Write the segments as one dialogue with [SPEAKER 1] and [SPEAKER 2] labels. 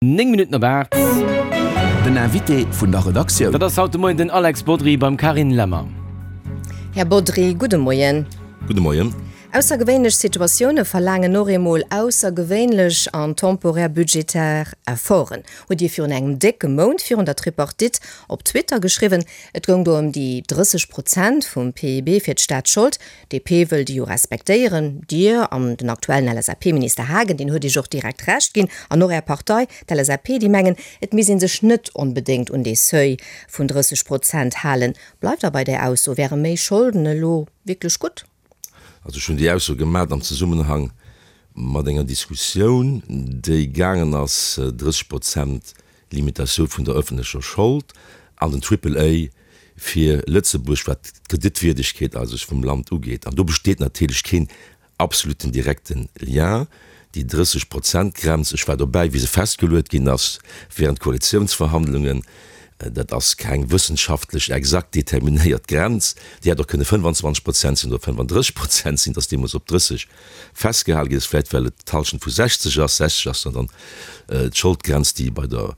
[SPEAKER 1] 9 Minutten op 8.
[SPEAKER 2] Den Invité vun der Redaktioun.
[SPEAKER 1] Dat ass haut de Moien den Alex Bodry beim Carine Lemmer.
[SPEAKER 3] Här Bodry, gudde Moien.
[SPEAKER 4] Gudde Moien.
[SPEAKER 3] Aussergewéinlech Situatioune verlaangen och eemol aussergewéinlech an temporär budgetär Efforten, hutt Dir virun engem décke Mount virun der Tripartite op Twitter geschriwwen. Et goung do ëm déi 30 Prozent vum PIB fir d'Staatsschold. DP wëll déi jo respektéieren. Dir an den aktuellen LSAP-Minister Haagen, deen huet Iech och direkt Recht ginn, an och Är Partei, d'LSAP, déi mengen, et misst ee sech net onbedéngt un dee Seuil vun 30 Prozent halen. Bleift Der bei där Ausso? Wäre méi Scholden elo wierklech gutt?
[SPEAKER 4] Also ech hunn déi Ausso gemat am Zesummenhang mat enger Diskussioun, déi gaangen ass, 30 Prozent Limitatioun vun der ëffentlecher Schold an den Triple A fir Lëtzebuerg, wat d'Kreditwierdegkeet eigentlech vum Land ugeet. An do besteet natierlech keen absoluten direkte Lien. Déi 30 Prozent Grenz, ech war dobäi wéi se festgeluet ginn ass während Koalitiounsverhandlungen, dat ass keng wëssenschaftlech exakt determinéiert Grenz. Déi hätt och kënne 25 Prozent sinn oder 35 Prozent sinn, et ass deemools op 30 festgehale ginn ass, vläicht well et d'Halschent vu 60 ass. 60 ass dann dann d'Scholdgrenz, déi bei der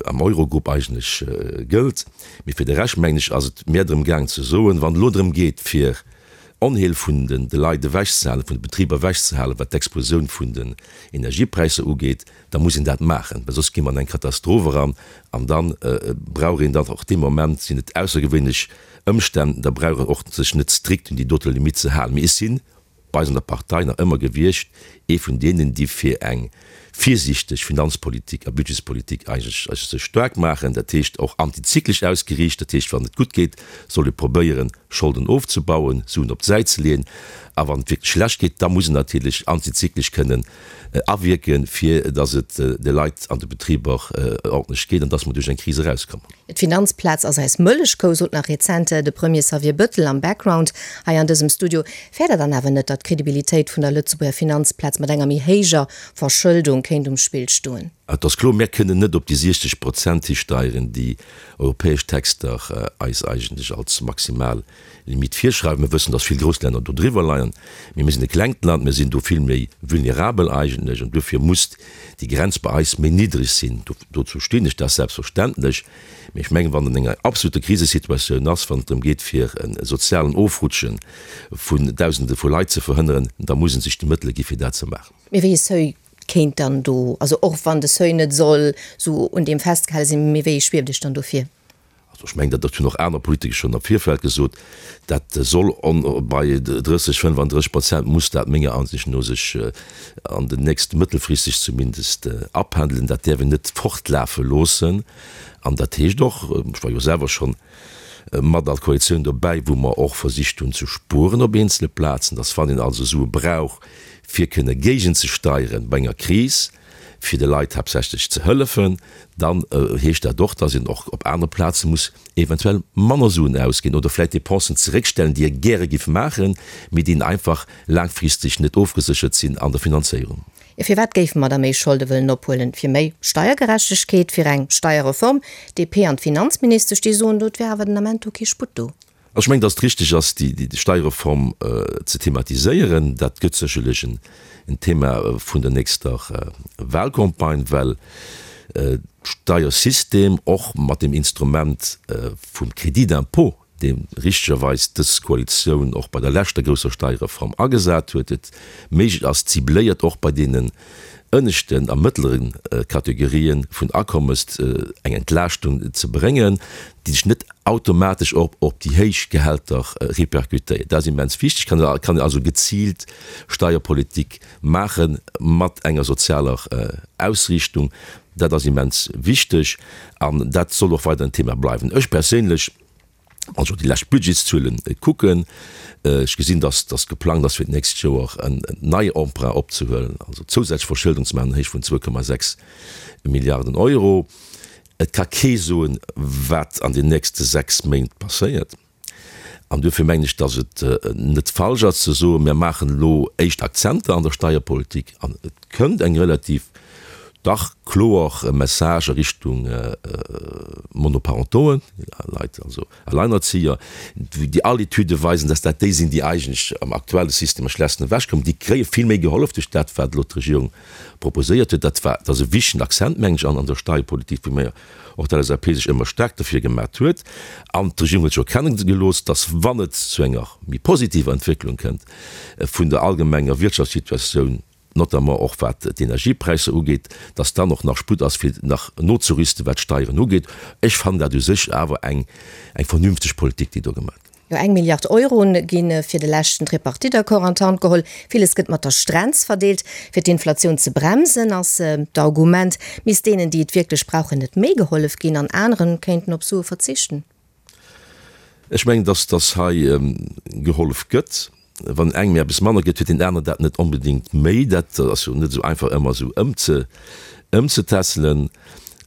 [SPEAKER 4] am Eurogrupp eigentlech gëllt. Mee fir de Rescht, mengen ech, ass et mehr drëm gaang ze soen, wann et elo drëm geet, fir Onheel vun de Leit ewechzehalen, vun de Betriber ewechzehalen, wat d'Explosioun vun den Energiepräisser ugeet, da muss een dat maachen, well soss gi mer an eng Katastroph eran an da brauch een dann och dee Moment, sinn et aussergewéinlech Ëmstänn, da brauch een och sech net strikt un déi dote Limitt ze halen. Mee ech sinn bei eis an der Partei nach ëmmer gewiescht ee vun deenen, déi fir eng virsiichteg Finanzpolitik a Budgetspolitik eigentlech sech staark maachen, dat heescht och antizyklesch ausgeriicht, dat heescht wann et gutt geet, soll ee probéieren Scholden ofzebauen, Suen op d'Säit ze leeën, a wann et wierklech schlecht geet, da muss een natierlech antizyklesch kënnen awierken, fir datt et de Leit an de Betriber ordentlech geet an datt mer duerch eng Kris erauskommen.
[SPEAKER 3] D'Finanzplaz ass eis Mëllechkou, sot nach rezent de Premier Xavier Bëttel am Background hei an dësem Studio. Fäert Der dann awer net, datt d'Credibilitéit vun der Lëtzebuerger Finanzplaz mat enger méi héijer Verschëldung kéint um Spill stoen?
[SPEAKER 4] Et ass kloer, mär kënnen net op déi 60 Prozent histeieren, déi europäesch Texter eis eigentlech als maximal Limitt virschreiwen. Mir wëssen, dass vill grouss Länner do driwwer leien, mee mir sinn e klengt Land, mir sinn do vill méi vulnerabel eigentlech an duerfir muss déi Grenz bei eis méi niddreg sinn. Dozou stinn ech, dat ass selbstverständlech. Mee ech mengen, wann et an enger absoluter Krisesituatioun ass, wann et drëm geet fir e sozialen Ofrutsche vun Dausende vu Leit ze verhënneren, da musse sech déi Mëttele gi fir dat ze maachen.
[SPEAKER 3] Mee wéi e Seuil kéint dann do, also och wann de Seuil net soll sou un deem festgehale sinn, mee wéi ee schwieft Iech dann do vir?
[SPEAKER 4] Also ech mengen, dat hunn och aner Politiker schonn am Virfeld gesot, dat soll bei 30, 35 Prozent muss dat menger Ansicht no sech an den nächste, mëttelfristeg zumindest, apendelen. Dat däerf een net fortlafe loossen. An dat heescht och, ech war jo selwer schonn mat an Koalitioun dobäi, wou mer och versicht hunn ze spueren op eenzele Plazen, dass wann een also Sue brauch fir kënne géigenzesteieren bei enger Kris, fir de Leit haaptsächlech ze hëllefen, dann heescht dat och, dass een och op anere Plaze muss eventuell manner Suen ausginn oder vläicht Dépensen zeréckstellen, déi ee gäre giff maachen, mee déi einfach laangfristeg net ofgeséchert sinn an der Finanzéierung.
[SPEAKER 3] Jo, firwat géife mer da méi Scholde wëllen ophuelen? Fir méi Steiergerechtegkeet, fir eng Steierreform? DP an d'Finanzministesch, déi soen do, et wär awer den Ament do kee Sputt do.
[SPEAKER 4] Also ech mengen, datt et richtig ass, déi Steierreform ze thematiséieren. Dat gëtt sécherlech en Thema vun der nächster Wahlcampagne, well d'Steiersystem och mat dem Instrument vum Crédit d'impôt, dee richtegerweis dës Koalitioun och bei der leschter grousser Steierreform agesat huet, et méiglech ass, cibléiert och bei deenen ënneschten a mëttlere Kategorië vun Akommes eng Entlaaschtung ze bréngen, déi sech net automatesch och op déi héich Gehälter répercutéiert. Dat ass immens wichteg. Kann kann een also geziilt Steierpolitik maache mat enger sozialer Ausriichtung. Dat ass immens wichteg an dat soll och weider en Thema bleiwen. Ech perséinlech, wann ech op déi lescht Budgetszuele kucken, ech gesinn, dass dass geplangt ass fir d'nächst Joer en neie Emprunt opzehuelen, also zousätzlech Verschëldung ze maachen an Héicht vun 2,6 Milliarden Euro. Et ka kee soen, wat an den nächste 6 Méint passéiert. An duerfir mengen ech, datt et net falsch ass ze soen, mir maachen elo éischt Akzenter an der Steierpolitik an et kënnt eng relativ. Dach kloer Message a Richtung Monoparentoen, Leit, also Alleinerzieher, déi all Etüde weisen, dass dat déi sinn, déi eigentlech am aktuelle System am schlechtesten ewechkommen. Déi kréie vill méi gehollef duerch dat, wat elo d'Regierung proposéiert huet. Dat war, dat ass e wichtegen Accent, mengen ech, an der Steierpolitik, wou mir och d'LSAP sech ëmmer staark derfir gemat huet. An d'Regierung huet scho kenne gelooss, dass, wann et zu enger méi positiver Entwécklung kënnt vun der allgemenger Wirtschaftssituatioun, notamment och wat d'Energiepräisser ugeet, dass dann och nach Sputt ass, fir nach nozerüsten, wat d'Steieren ugeet. Ech fannen dat u sech awer eng eng vernünfteg Politik, déi do gemaach gëtt.
[SPEAKER 3] Jo, eng Milliard Euro gi fir de leschten Tripartite-Accord an d'Hand geholl. Villes gëtt mat der Strenz verdeelt. Fir d'Inflatioun ze bremsen, ass d'Argument, misst deenen, déi et wierklech brauchen, net méi gehollef ginn an aneren kéinten op Sue verzichten.
[SPEAKER 4] Ech mengen, dass dass hei gehollef gëtt. Wann engem eppes manner gëtt, huet deen aneren dat net onbedéngt méi. Dat ass jo net esou einfach ëmmer esou ëmzetässelen.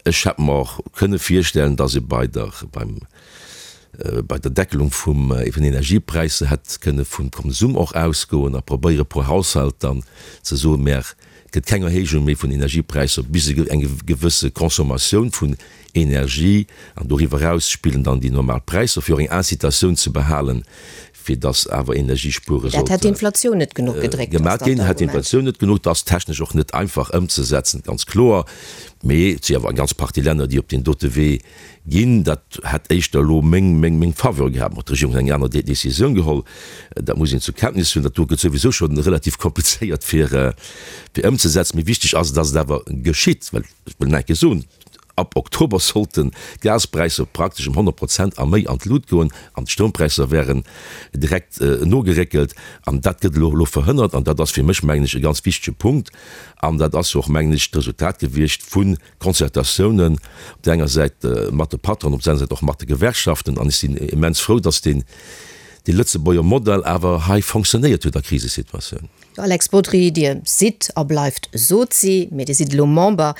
[SPEAKER 4] Ech hätt mer och kënne virstellen, dass ee bei der, beim, bei der Deckelung vum, vun Energiepräisser hätt kënne vum Konsum och ausgoen a probéiere pro Haushalt dann ze soen, Mär, et gëtt keng Erhéijung méi vun Energiepräisser bis eng gewësse Consommatioun vun Energie, an doriwwer eraus spillen dann déi normal Präisser, fir och eng Incitatioun ze behalen, fir dass awer Energiespuere
[SPEAKER 3] sollte. Dat hätt d'Inflatioun net genuch gedréckt, ass
[SPEAKER 4] dann
[SPEAKER 3] d'Argument.
[SPEAKER 4] Hätt d'Inflatioun net genuch. Dat ass technesch och net einfach ëmzesetzen, ganz kloer. Mee et si awer eng ganz Partie Länner, déi op deen dote Wee ginn. Dat hätt éischter elo meng, meng, meng Faveur gehat. Bon, d'Regierung huet eng aner Décisioun geholl. Dat muss een zur Kenntnis huelen. Dat do gëtt souwisou scho relativ komplizéiert fir, fir ëmzesetzen. Mee wichteg ass, dass et awer geschitt, well ech wëll nach eng Kéier soen, Ab Oktober sollten d'Gaspräisser praktesch ëm 100 Prozent a méi an d'Lut goen an d'Stroumpräisser wären direkt nogeréckelt. An dat gëtt elo elo verhënnert an dat ass fir mech, mengen ech, e ganz wichtege Punkt. An dat ass jo och, mengen ech, d'Resultat gewiescht vu Concertatiounen op där enger Säit mat de Patronen, op där anerer Säit och mat de Gewerkschaften. An ech sinn immens frou, dass deen, dee Lëtzebuerger Modell awer hei fonctionnéiert huet a Krisesituatioun.
[SPEAKER 3] Alex Bodry, Dir sidd a bleift Sozi, mee Dir sidd elo Member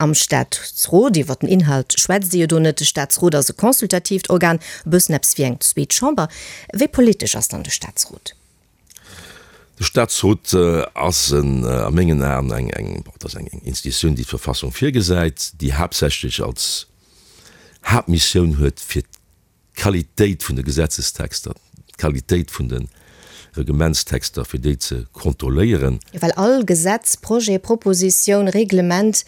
[SPEAKER 3] am Staatsrot. Iwwer den Inhalt schwätzt Dir jo do net. De Staatsrot ass e consultatiivt Organ, e bëssen eppes wéi eng zweet Chamber. Wéi politesch ass dann de Staatsrot?
[SPEAKER 4] De Staatsrot ass a mengen Aen eng, eng, bon, et ass eng Institutioun, déi d'Verfassung virgesäit, déi haaptsächlech als Haaptmissioun huet, fir d'Qualitéit vun de Gesetzestexter, d'Qualitéit vun de Reglementstexter, fir déi ze kontrolléieren.
[SPEAKER 3] Well all Gesetz, Projet, Propositioun, Reglement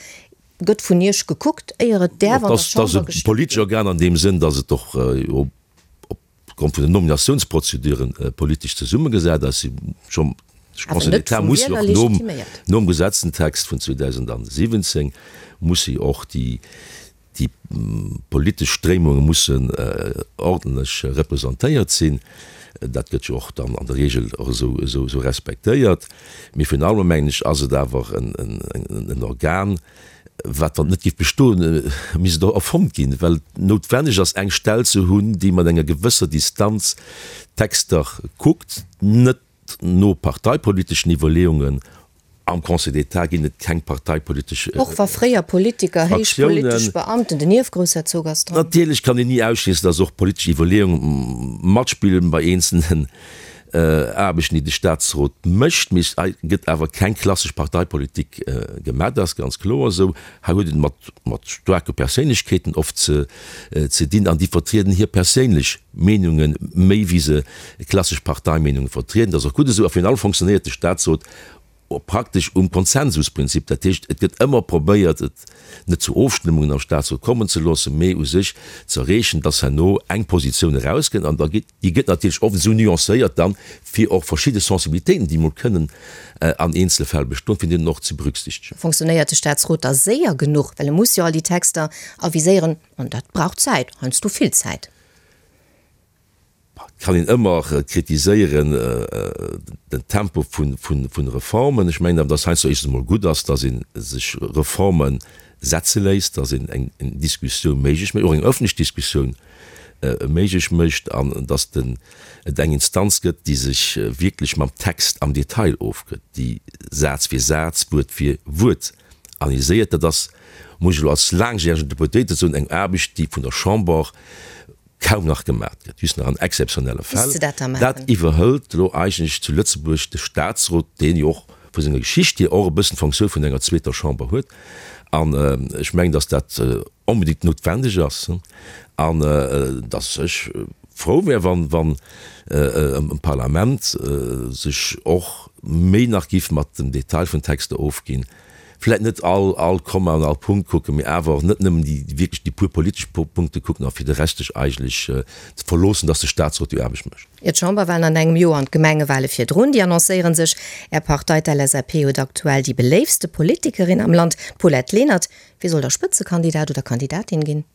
[SPEAKER 3] gëtt vun Iech gekuckt, éier et däerf an der
[SPEAKER 4] Chamber gestëmmt ginn. Et ass e politesch Organ an deem Sënn, datt et och opgrond vun den Nominatiounsprozeduren politesch zesummegesat ass. De Conseil d'État muss jo och nom Gesetzentext vun 2017 muss jo och déi Déi politesch Stréimunge mussen ordentlech representéiert sinn. Dat gëtt jo och dann an der Regel och esou respektéiert. Mee virun allem, mengen ech, ass et awer en Organ, wat, wann et net géif bestoen, misst et erfonnt ginn, well et noutwenneg ass, eng Stell ze hunn, déi mat enger gewësser Distanz d'Texter kuckt, net No parteipoliteschen Iwwerleeungen am Conseil d'État ginn et keng parteipolitesch
[SPEAKER 3] Och wa fréier Politiker, héich politesch Beamten, den Ierfgroussherzog ass dran.
[SPEAKER 4] Natierlech kann een ni ausschléissen, datt och politesch Iwwerleeunge matspillen bei eenzelnen Aarbechten, déi de Staatsrot mécht. Mee hei gëtt awer keng klassesch Parteipolitik gemaach, dat ass ganz kloer esou. Hei huet et mat mat staarke Perséinlechkeeten oft ze ze dinn an déi vertrieden hir perséinlech Meenunge méi wéi se klassesch Parteimeenunge vertrieden. Dat ass och gutt esou. A virun allem fonctionnéiert de Staatsrot praktesch um Konsensusprinzip. Dat heescht, et gëtt ëmmer probéiert, et net zu Ofstëmmungen am Staatsrot kommen ze loossen, mee u sech ze erreechen, dass herno eng Positioun erauskënnt. An da geet, déi gëtt natierlech oft esou nuancéiert dann, fir och verschidde Sensibilitéiten, déi emol kënnen an eenzele Fäll bestoen, fir déi dann och ze berücksichtegen.
[SPEAKER 3] Fonctionnéiert de Staatsrot da séier genuch? Well e muss jo all déi Texter aviséieren, an dat brauch Zäit, heiansdo vill Zäit.
[SPEAKER 4] Et kann een ëmmer kritiséieren den Tempo vun Reformen. Ech mengen awer, datt heiansdo éischtens emol gutt ass, datt ee sech Reforme setze léisst, datt een eng Diskussioun méiglech mécht, och eng ëffentlech Diskussioun méiglech mécht an datt et eng Instanz gëtt, déi sech wierklech mam Text am Detail ofgëtt, déi Saz fir Saz, Wuert fir Wuert analyséiert. Dat ass, muss ech elo als laangjäregen Deputéierte soen, eng Aarbecht, déi vun der Chamber kaum nach gemat gëtt, just nach an exzeptionelle Fäll.
[SPEAKER 3] Misst se dat da
[SPEAKER 4] maachen? Dat iwwerhëlt elo eigentlech zu Lëtzebuerg de Statsrot, deen jo och. vu senger Geschicht hier och e bëssen d'Fonctioun vun enger zweeter Chamber huet. An ech mengen, datt dat onbedéngt noutwendeg ass an datt ech frou wär, wann wann e Parlament sech och méi nach giff mat dem Detail vun Texter ofginn, vläit net all all Komma an all Punkt kucken, mee awer och net nëmmen déi wierklech déi pur politesch Punkte kucken a fir de Rescht sech eigentlech ze verloossen, datt de Statsrot déi Aarbecht mécht.
[SPEAKER 3] Jo, d'Chamberwahlen an engem Joer an d'Gemengewale virdrun, déi annoncéiere sech. Är Partei, d'LSAP, huet aktuell déi beléiftste Politikerin am Land, d'Paulette Lenert. Wie soll da Spëtzekandidat oder Kandidatin ginn?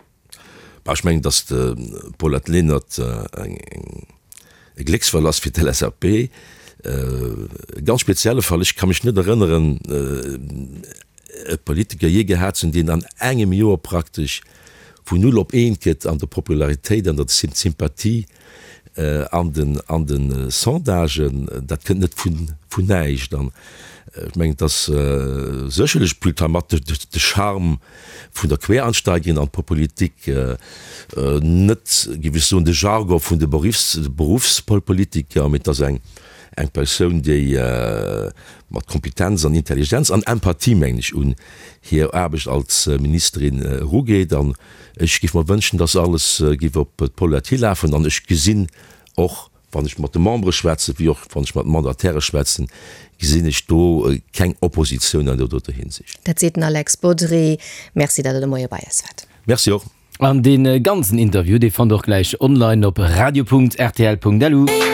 [SPEAKER 4] Bah, ech mengen, datt d'Paulette Lenert e Glécksfall ass fir d'LSAP. E ganz spezielle Fall. Ech ka mech net erënneren, e Politiker jee gehat ze hunn, deen an engem Joer praktesch vun null op eent gëtt an der Popularitéit, an der Sympathie an den an de Sondagen. Dat kënnt net vun vun näischt. An ech mengen, et ass sécherlech plus tard mat de Charme vun der Quereinsteigerin an d'Politik, net, géif ech soen, de Jargon vun de Berufspolitiker, mee et ass eng eng Persoun, déi mat Kompetenz an Intelligenz an Empathie, mengen ech, un hir Aarbecht als Ministerin erugeet. An ech géif mer wënschen, dass alles géif op d'Paulette hilafen. An ech gesinn och, wann ech mat de Membere schwätzen, wéi och wann ech mat Mandataire schwätzen, gesinn ech do keng Oppositioun an där doter Hinsicht.
[SPEAKER 3] Dat seet den Alex Bodry. Merci, datt Der de Moie bei eis waart.
[SPEAKER 4] Merci och.
[SPEAKER 1] An dee ganzen Interview, dee fannt der och gläich online op radio.rtl.lu.